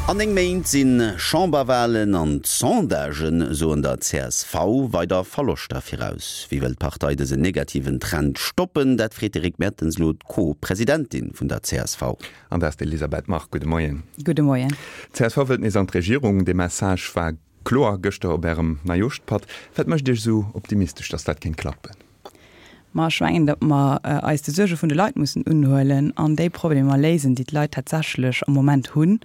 An 9 Méint si Chamberwalen an d'Sondagen soen der csv weider Verloschter viraus. Wéi wëll d'Partei dësen negativen Trend stoppen? Dat freet de Rick Mertens elo d'Co-Presidentin vun der csv. An dat ass d'Elisabeth Margue. Gudde Moien. Gudde Moien. D'csv wëllt nees an d'Regierung. Dee Message war kloer gëschter op Ärem Neijooschpatt. Wat mécht Iech esou optimistesch, datt dat kéint klappen? Ma ech mengen, datt mer eis de Suerge vun de Leit mussen unhuelen an déi Problemer léisen, déi d'Leit tatsächlech am Moment hunn.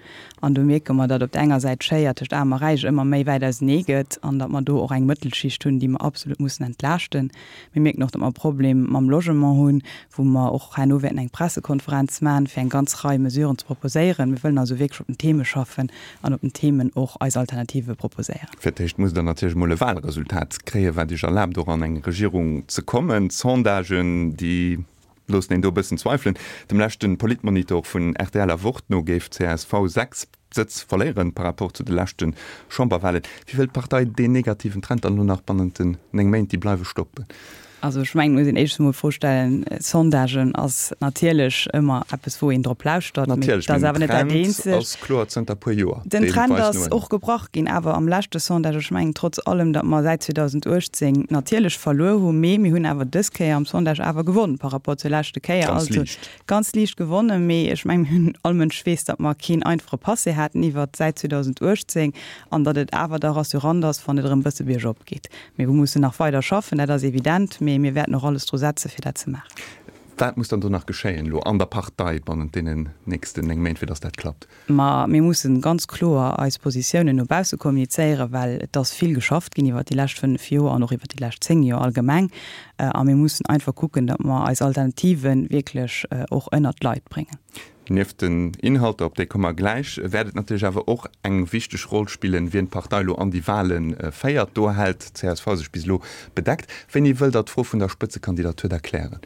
An do mierke mer, datt op der enger Säit d'Schéier tëscht Aarm a Räich ëmmer méi wäit ausenee gëtt an datt mer do och eng Mëttelschicht hunn, déi mer absolut mussen entlaaschten. Mir mierken och, datt mer e Problem mam Logement hunn, wou mer och herno wäerten eng Pressekonferenz maachen, fir eng ganz Rei Mesuren ze proposéieren. Mir wëllen also wierklech op den Theme schaffen an op den Themen och eis Alternative proposéieren. Fir d'éischt musst Der natierlech emol e Wahlresultat kréien, wat Iech erlaabt, och an eng Regierung ze kommen. D'Sondagen, déi loossen een do e bëssen zweifelen. Dem leschte Politmonitor vun rtl a Wort no géif csv 6 Sëtz verléieren par rapport zu de leschte Chamberwahlen. Wéi wëll d'Partei deen negativen Trend dann elo nach bannent den 9 Méint, déi bleiwe, stoppen? Also ech mengen, et muss een éischtens emol d'Fro stellen, Sondagen ass natierlech ëmmer eppes, wou een drop lauschtert, mee et ass awer net dat eenzegt. Den Trend ass kloer zënter puer Joer. Den Trend ass och gebrach ginn, awer am leschte Sondage. Ech mengen trotz allem, datt mer säit 2018 natierlech verluer hu, mee mir hunn awer dës Kéier am Sondage awer gewonn par rapport zur leschte Kéier. Ganz liicht. Ganz liicht gewonnen, mee ech mengen, mir hunn, all Mënsch weess, datt mer keen einfache Passé haten iwwert säit 2018 an datt et awer da rassurant ass, wann et erëm e bësse biergop geet. Mee mir mussen nach weider schaffen, dat ass evident, mee mir wäerten och alles dru setze fir dat ze maachen. Wat muss dann do nach geschéien elo an der Partei bannent deenen nächsten 9 Méint, fir datt dat klappt? Ma mir mussen ganz kloer eis Positiounen no bausse kommunizéieren, well et ass vill geschafft ginn iwwert déi lescht 5 Joer an och iwwert déi lescht 10 Joer allgemeng. A mir mussen einfach kucken, datt mer eis Alternative wierklech och ënnert d'Leit bréngen. Nieft den Inhalter, op déi komme mer gläich, wäert et natierlech awer och eng wichteg Roll spillen, wien d'Partei elo an déi Wahle féiert. Do hält csv sech bis elo bedeckt. Wéini wëllt Der d'Fro vun der Spëtzekandidatur da klären?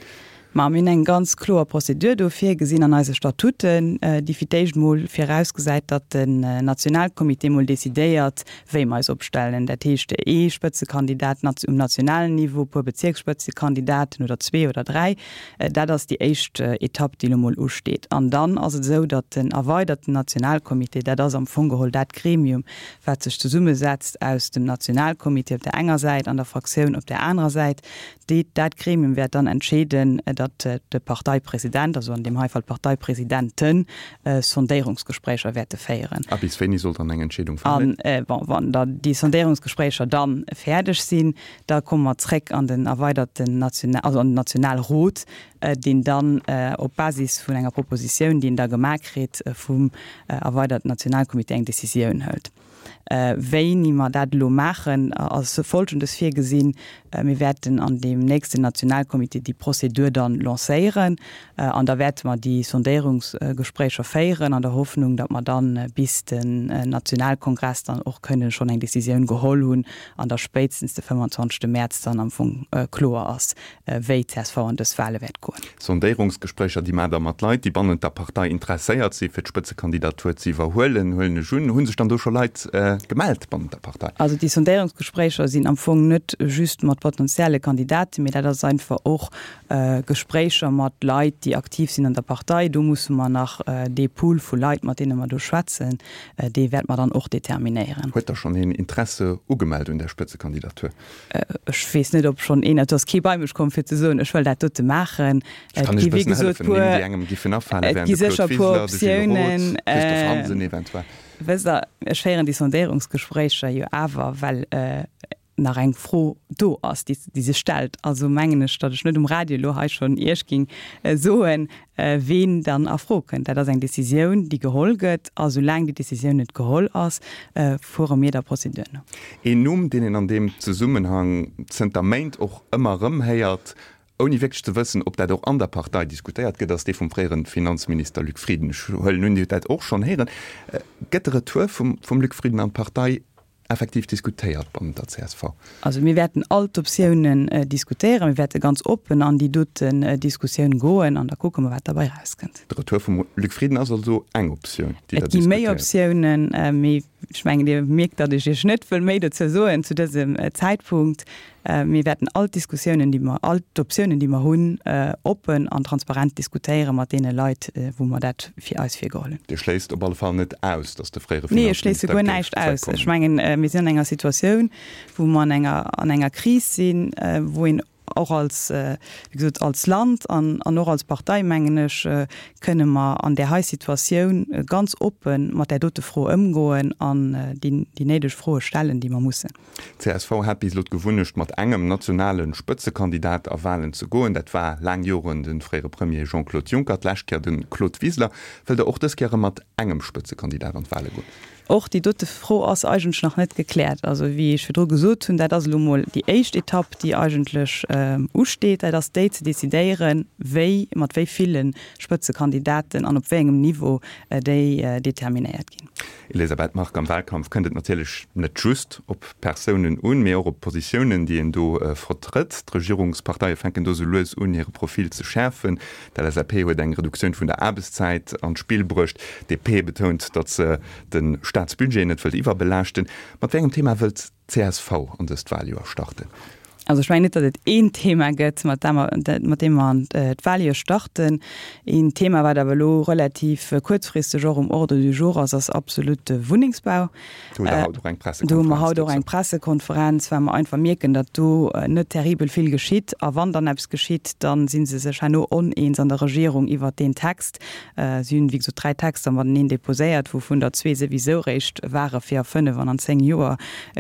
Ma mir hunn eng ganz kloer Prozedur do virgesinn an eise Statuten, déi fir d'éischt mol virausgesäit, datt den Nationalcomité mol decidéiert, wéi mer eis opstellen. Dat heescht, ee Spëtzekandidat um nationalen Niveau, e puer Bezierksspëtzekandidaten oder zwee oder dräi. Dat ass déi éischt Etapp, déi elo mol usteet. An dann ass et esou, datt den erweiderten Nationalcomité, dat ass am Fong geholl dat Gremium, wat sech zesummesetzt aus dem Nationalcomité op där enger Säit an der Fraktioun op där anerer Säit, Déi, dat Gremium wäert dann entscheeden, datt de Parteipresident, also an deem hei Fall d'Parteipresidenten, Sondéierungsgespréicher wäerte féieren. A bis wéini soll dann eng Entscheedung falen? An, bon, wann da déi Sondéierungsgespréicher da fäerdeg sinn, da komme mer zréck an den erweiderten National, also an den Nationalrot, deen dann op Basis vun enger Propositioun, déi en da gemaach kritt vum erweiderten Nationalcomité, eng Décisioun hëlt. Wéini mer dat elo maachen, ass Folgendes virgesinn, Mir wäerten an deem nächsten Nationalcomité déi Prozedur dann lancéieren an da wäerte mer déi Sondéierungsgespréicher féieren an der Hoffnung, datt mer dann bis den Nationalkongress dann och kënnen schonn eng Décisioun geholl hunn an da spéitstens de 25. Mäerz dann am Fong kloer ass, wéi csv an dës Wahle wäert goen. Sondéierungsgespréicher, déi maacht Der mat Leit, déi bannent der Partei interesséiert si fir d'Spëtzekandidatur ze iwwerhuelen, huelen ech un. Hu sech dann do scho Leit gemellt bannent der Partei? Also déi Sondéierungsgespréicher sinn am Fong net just mat potentielle Kandidaten, mee dat ass einfach och Gespréicher mat Leit, déi aktiv sinn an der Partei. Do musse mer nach dee Pool vu Leit, mat deene mer do schwätzen, dee wäerte mer dann och determinéieren. Huet da schonn een Interesse ugemellt un där Spëtzekandidatur? Ech weess net, ob schonn een, et ass kee bei mech komm fir ze soen, ech wëll dat dote maachen. Ech kann Iech e bëssen hëllefen, Nimm, déi engem giffen afalen, wären de Claude Wiseler, de Gilles Roth, Christophe Hansen eventuell. Wësst Der, ech féieren déi Sondéierungsgespréicher jo awer, well nach eng Fro do ass, déi sech stellt. Also mengen ech, datt ech net um Radio elo hei schonn Iech géing soen, ween dann a Fro kënnt. Dat ass eng Décisioun, déi geholl gëtt, a soulaang déi Décisioun net geholl ass, fuere mir der Prozedur no. Een Numm, deen een an deem Zesummenhang zënter Méint och ëmmer erëm héiert, ouni wierklech ze wëssen, ob dat och an der Partei diskutéiert gëtt, ass dee vum fréiere Finanzminister Luc Frieden. Ech huelen un, Dir hutt dat och schonn héieren. Gëtt de Retour vum Luc Frieden an d'Partei effektiv diskutéiert bannent der csv? Also mir wäerten all d'Optiounen diskutéieren. Mir wäerte ganz oppen an déi doten Diskussioun goen an da kucke mer, wat derbei erauskënnt. De Retour vum Luc Frieden ass also eng Optioun, déi Der diskutéiert? Et gi méi Optiounen, mee. Ech mengen, Dir mierkt, datt ech Iech net wëll méi dozou soen zu dësem Zäitpunkt. Mir wäerten all d'Diskussiounen, déi mer, all d'Optiounen, déi mer hunn, oppen an transparent diskutéiere mat deene Leit, wou mer dat fir eis virgeholl hunn. Dir schléisst op alle Fall net aus, datt de fréiere Nee, ech schléisse Finanzminister guer géif näischt aus. zréckkommen? Ech mengen, mir sinn an enger Situatioun, wou mer an enger, an enger Kris sinn, wou een och als, wéi gesot, als Land an an och als Partei, mengen ech, kënne mer an där hei Situatioun ganz oppe mat där dote Fro ëmgoen an déi déi néideg Froe stellen, déi mer mussen. D'CSV hat bis elo d'Gewunnecht, mat engem nationale Spëtzekandidat a Walen ze goen. Dat war laang Joren de fréiere Premier Jean-Claude Juncker, d'lescht Kéier de Claude Wiseler. Wëllt Der och dës Kéier erëm mat engem Spëtzekandidat an d'Wale goen? Och déi dote Fro ass eigentlech nach net gekläert. Also, wéi ech virdru gesot hunn, dat ass elo emol déi éischt Etapp, déi eigentlech usteet. Dat ass déi ze decidéieren, wéi, mat wéi ville Spëtzekandidaten an op wéi engem Niveau déi determinéiert ginn. Elisabeth Margue, Am Wahlkampf kënnt et natierlech net just op Persounen un, mee och op d'Positiounen, déi een do vertrëtt. D'Regierungsparteie fänken do sou lues un, hire Profil ze schäerfen. D'LSAP huet eng Reduktioun vun der Aarbechtszäit an d'Spill bruecht. DP betount, datt se de Staatsbudget net wëllt iwwerbelaaschten. Mat wéi engem Thema wëllt d'CSV an dëst Waljoer starten? Also ech mengen net, datt et een Thema gëtt, mat deem mer, mat deem mer an d'Waljoer starten. Een Thema, wat awer elo relativ kuerzfristeg och um Ordre du jour ass, ass absolut de Wunnengsbau. Do hutt Der haut och eng Pressekonferenz Do hu mer haut och eng Pressekonferenz, well mer einfach mierken, datt do net terribel vill geschitt. A wann dann eppes geschitt, da si se sech herno oneens an der Regierung iwwert deen Text. Si hunn, wéi gesot, 3 Texter mateneen deposéiert, wouvun der zwee souwisou réischt ware fir a fënnef an an zéng Joer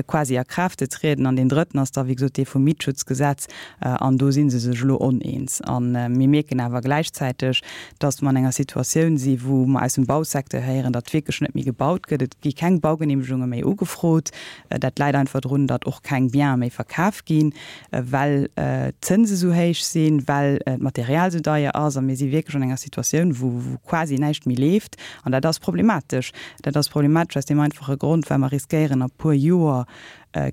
quasi a Kraaft ze trieden. An deen drëtten ass da, wéi gesot, dee vum Mietschutzgesetz. An do si se sech elo oneens. A mir mierken awer gläichzäiteg, datt mer an enger Situatioun si wou mer aus dem Bausecteur héieren, datt wierklech net méi gebaut gëtt. Et gi keng Baugeneemegunge méi ugefrot. Dat läit einfach drun, datt och keng Biene méi verkaf ginn, well d'Zënse sou héich sinn, well d'Material sou deier ass. A mir si wierklech an enger Situatioun, wou quasi näischt méi leeft. An dat ass problematesch. Dat ass problematesch aus deem einfache Grond, well mer riskéieren a puer Joer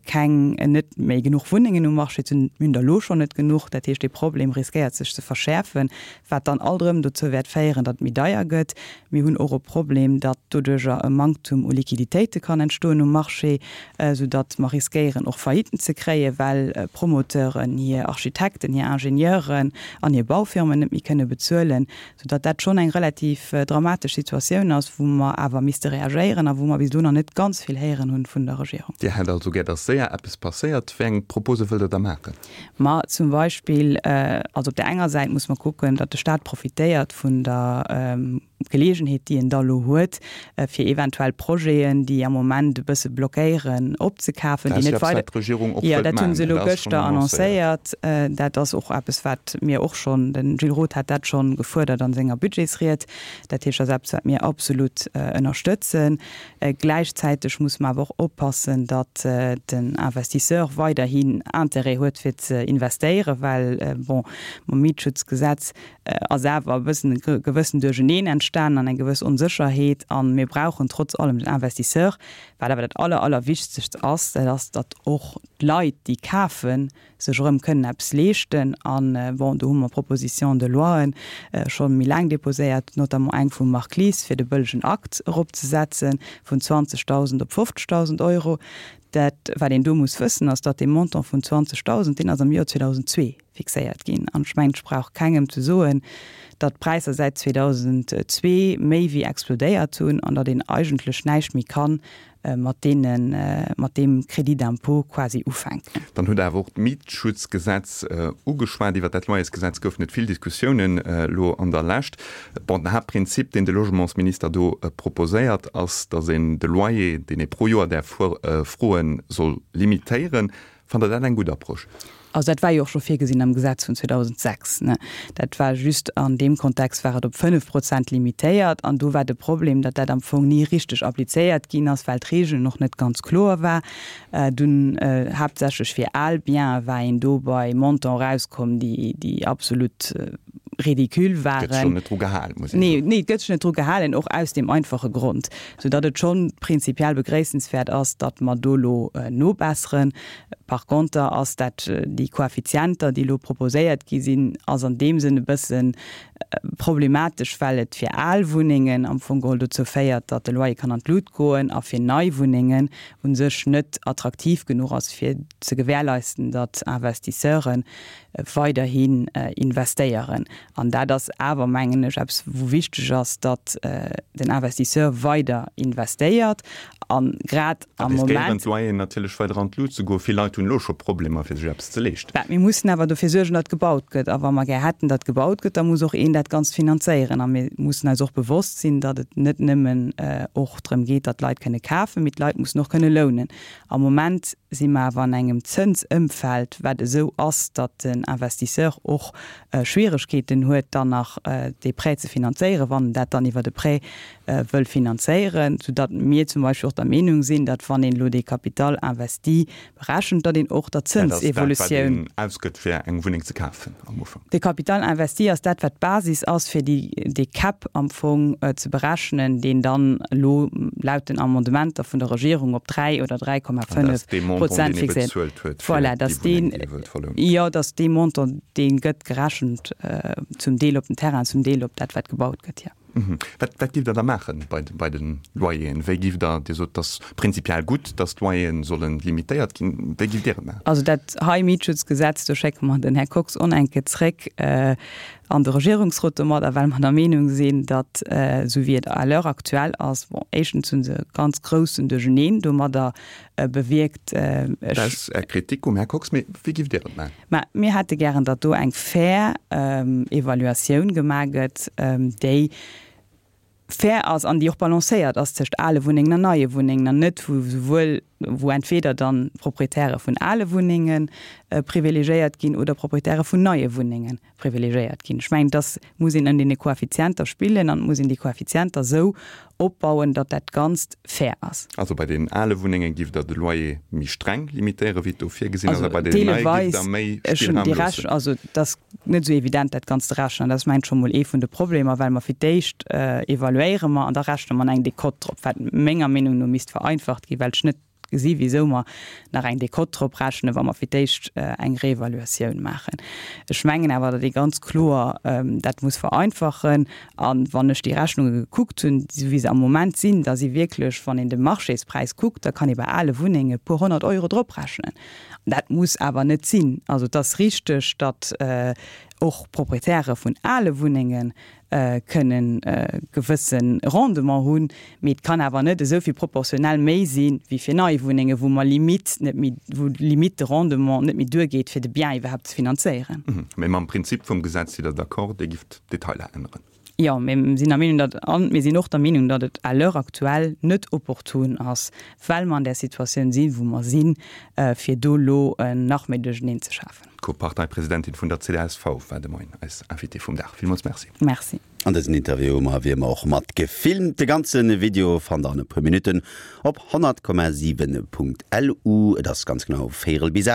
keng, net méi genuch Wunnengen um Marché ze hunn. Mir hunn der elo schonn net genuch. Dat heescht, dee Problem riskéiert sech ze verschäerfen, wat dann alt erëm dozou wäert féieren, datt et méi deier gëtt. Mir hunn och e Problem, datt doduerjer e Manktum u Liquiditéite kann entstoen um Marché, soudatt mer riskéieren och Failliten ze kréien, well Promoteuren hir Architekten, hir Ingenieuren an hir Baufirmen net méi kënne bezuelen. Soudatt dat schonn eng relativ dramatesch Situatioun ass, wou mer awer misste reagéieren a wou mer bis elo nach net ganz vill héieren hunn vun der Regierung. Dir hätt also gär, datt séier eppes passéiert. Wéi eng Propose wëllt Der da maachen? Ma zum Beispill, also op där enger Säit muss mer kucken, datt de Stat profitéiert vun der Geleegenheet, déi en da elo huet, fir eventuell Projeten, déi am Moment e bësse blockéieren, opzekafen, déi net weider. Dat ass jo eppes, wat d'Regierung och Jo, wëllt dat hu maachen. se elo Dat ass schonn gëschter annoncéiert. annoncéiert. Dat ass och eppes, wat mir och schonn, de Gilles Roth hat dat schonn gefuerdert an senger Budgetsried. Dat heescht, dat ass eppes, wat mir absolut ënnerstëtzen. Gläichzäiteg muss mer awer och oppassen, datt den Investisseur weiderhin Intérêt huet, fir ze investéieren, well, bon, mam Mietschutzgesetz ass awer e bëssen e gewëssen Duercheneen entstanen an eng gewëss Onsécherheet. A mir brauchen trotz allem den Investisseur. Wat awer dat aller, allerwichtegst ass, dat ass, datt och d'Leit, déi kafen, sech erëm kënnen eppes leeschten. A bon, do hu mer Propositions de loien scho méi laang déposéiert, notamment eng vum Marc Lies, fir de bëllegen Akt eropzesetze vun 20.000 op 50.000 Euro. Dat, wat een do muss wëssen, ass, datt dee Montant vun 20.000, deen ass am Joer 2002 fixéiert ginn. An ech mengen, ech brauch kengem ze soen, datt d'Präisser säit 2002 méi wéi explodéiert hunn an datt een eigentlech näischt méi kann mat deene, mat deem Crédit d'impôt quasi ufänken. Dann hutt Der awer och d'Mietschutzgesetz ugeschwat. Iwwert dat Loyersgesetz goufen et vill Diskussiounen elo an der Lescht. Bon, den Haaptprinzip, deen de Logementsminister do proposéiert, ass, datt een de Loyer, deen ee pro Joer däerf froen, soll limitéieren. Fannt Der dat eng gutt Approche? Also dat war jo och scho virgesinn am Gesetz vun 2006, ne. Dat war just an deem Kontext war et op 5 Prozent limitéiert an do war de Problem, datt dat am Fong ni richteg applizéiert ginn ass, well d'Regeln och net ganz kloer war. Dunn haaptsächlech fir al Biene war een do bei Montant erauskomm, déi, déi absolut. ridicule waren. Gëtt sech och net dru gehalen, muss een soen. Nee, nee, et gëtt sech net dru gehalen, och aus deem einfache Grond, soudatt et scho prinzipiell begréissenswäert ass, datt mer do elo nobesseren. Par conter ass dat, déi Koeffizienter, déi elo proposéiert gi sinn, ass an deem Sënn e bësse problematesch, well et fir al Wunnengen am Fong geholl dozou féiert, datt de Loyer kann an d'Lut goen a fir nei Wunnengen u sech net attraktiv genuch ass, fir ze gewährleisten, datt Investisseure weiderhin investéieren. An dat ass awer, mengen ech, eppes, wou wichteg ass, datt den Investisseur weider investéiert. A grad am Moment. Riskéieren d'Loyeren natierlech weider an d'Lut ze goen. Vill Leit hunn elo scho Problemer, fir sech eppes ze leeschten. Mä mir mussen awer dofir suergen, datt gebaut gëtt. A wa mer gär hätten, datt gebaut gëtt, da muss och een dat Ganzt finanzéieren. A mir mussen eis och bewosst sinn, datt et net nëmmen och drëm geet, datt d'Leit kënne kafen, mee d'Leit mussen och kënne lounen. Am Moment si mer awer an engem Zënsëmfeld, wat esou ass, datt den Investisseur och Schwieregkeeten huet, dann nach dee Prêt ze finanzéieren, wann en dat dann iwwert e Prêt wëll finanzéieren, soudatt mir zum Beispill och der Meenung sinn, datt wann een elo dee Capital investi berechent, datt een och der Zënsevolutioun. Dat ass dat, wat een ausgëtt, fir eng Wunneng ze kafen am Ufank. De Capital investi ass dat, wat d'Basis ass, fir déi, dee Cap am Fong ze berechnen, deen dann elo laut den Amendementer vun der Regierung op 3 oder 3,5 Prozent fixéiert. Voilà, dass deen, jo, dass dee Montant, dee gëtt gerechent zum Deel op den Terrain, zum Deel op dat, wat gebaut gëtt, jo. Wat, wat giff Der da maache bei, bei de Loyeren? Wéi giff Der, Dir sot, et ass prinzipiell gutt, datt d'Loyeren solle limitéiert ginn. Wéi giff Dir et maachen? Also dat hei Mietschutzgesetz, do schécke mer den Här Kox onenke zréck an de Regierungsrot domadder, well mer der Meenung sinn, datt, esou wéi et à l'heure actuelle ass, bon, éischtens hu se e ganz groussen Duercheneen domadder bewierkt. Ech. Dat ass Är Kritik um Här Kox, mee wéi giff Dir et maachen? Mä mir hätte gären, datt do eng fair Evaluatioun gemaach gëtt, déi fair ass an déi och balancéiert ass tëscht ale Wunnengen an neie Wunnengen an net wou souwuel, wou entweder dann d'Proprietäre vun ale Wunnenge privilegéiert ginn oder Proprietäre vun neie Wunnenge privilegéiert ginn. Ech mengen, dass muss een ëm deene Koeffizienter spillen an et muss een déi Koeffizienter esou opbauen, datt dat Ganzt fair ass. Also bei deenen ale Wunnenge giff Der de Loyer méi streng limitéieren, wéi et do virgesinn ass, a bei deenen neie giff Der méi Spillraum loossen? Also et ass net esou evident, dat Ganzt ze rechnen. Dat ass, mengen ech, scho mol ee vun de Problemer, well mer fir d'éischt evaluéiere mer an da rechne mer eng Decote drop, wat menger Meenung no misst vereinfacht ginn, well ech net gesi wisou mer nach eng Decote drop rechnen, wa mer fir d'éischt eng Reevaluatioun maachen. Ech mengen awer, datt ee ganz kloer dat muss vereinfachen. A wann ech déi Rechnunge gekuckt hunn, esou wéi se am Moment sinn, da si wierklech, wann een de Marchéspräis kuckt, da kann ee bei ale Wunnenge e puer 100 Euro drop rechnen. An dat muss awer net sinn. Also et ass richteg, datt och Proprietäre vun ale Wunnengen kënnen e gewësse Rendement hunn, mee et kann awer net esou vill proportionell méi si wéi fir nei Wunnengen, wou mer limite net méi, wou limite de Rendement net méi duergeet, fir de Bien iwwerhaapt ze finanzéieren. Mee mam Prinzip vum Gesetz sidd Der d'accord, Dir gifft d'Detailer änneren? Jo, mir sinn der Meenung, datt, a mir sinn och der Meenung, datt et à l'heure actuelle net opportun ass, well mer an där Situatioun sinn, wou mer sinn, fir do elo nach méi Duercheneen ze schafen. D'Co-Parteipresidentin vun der csv war de Moien eis Invitée vum Dag. Villmools Merci. Merci. An dësen Interview hu mer wéi ëmmer och mat gefilmt. De ganze Video fannt der an e puer Minutten op 100,7.lu. Et ass ganz genau véierel bis 8.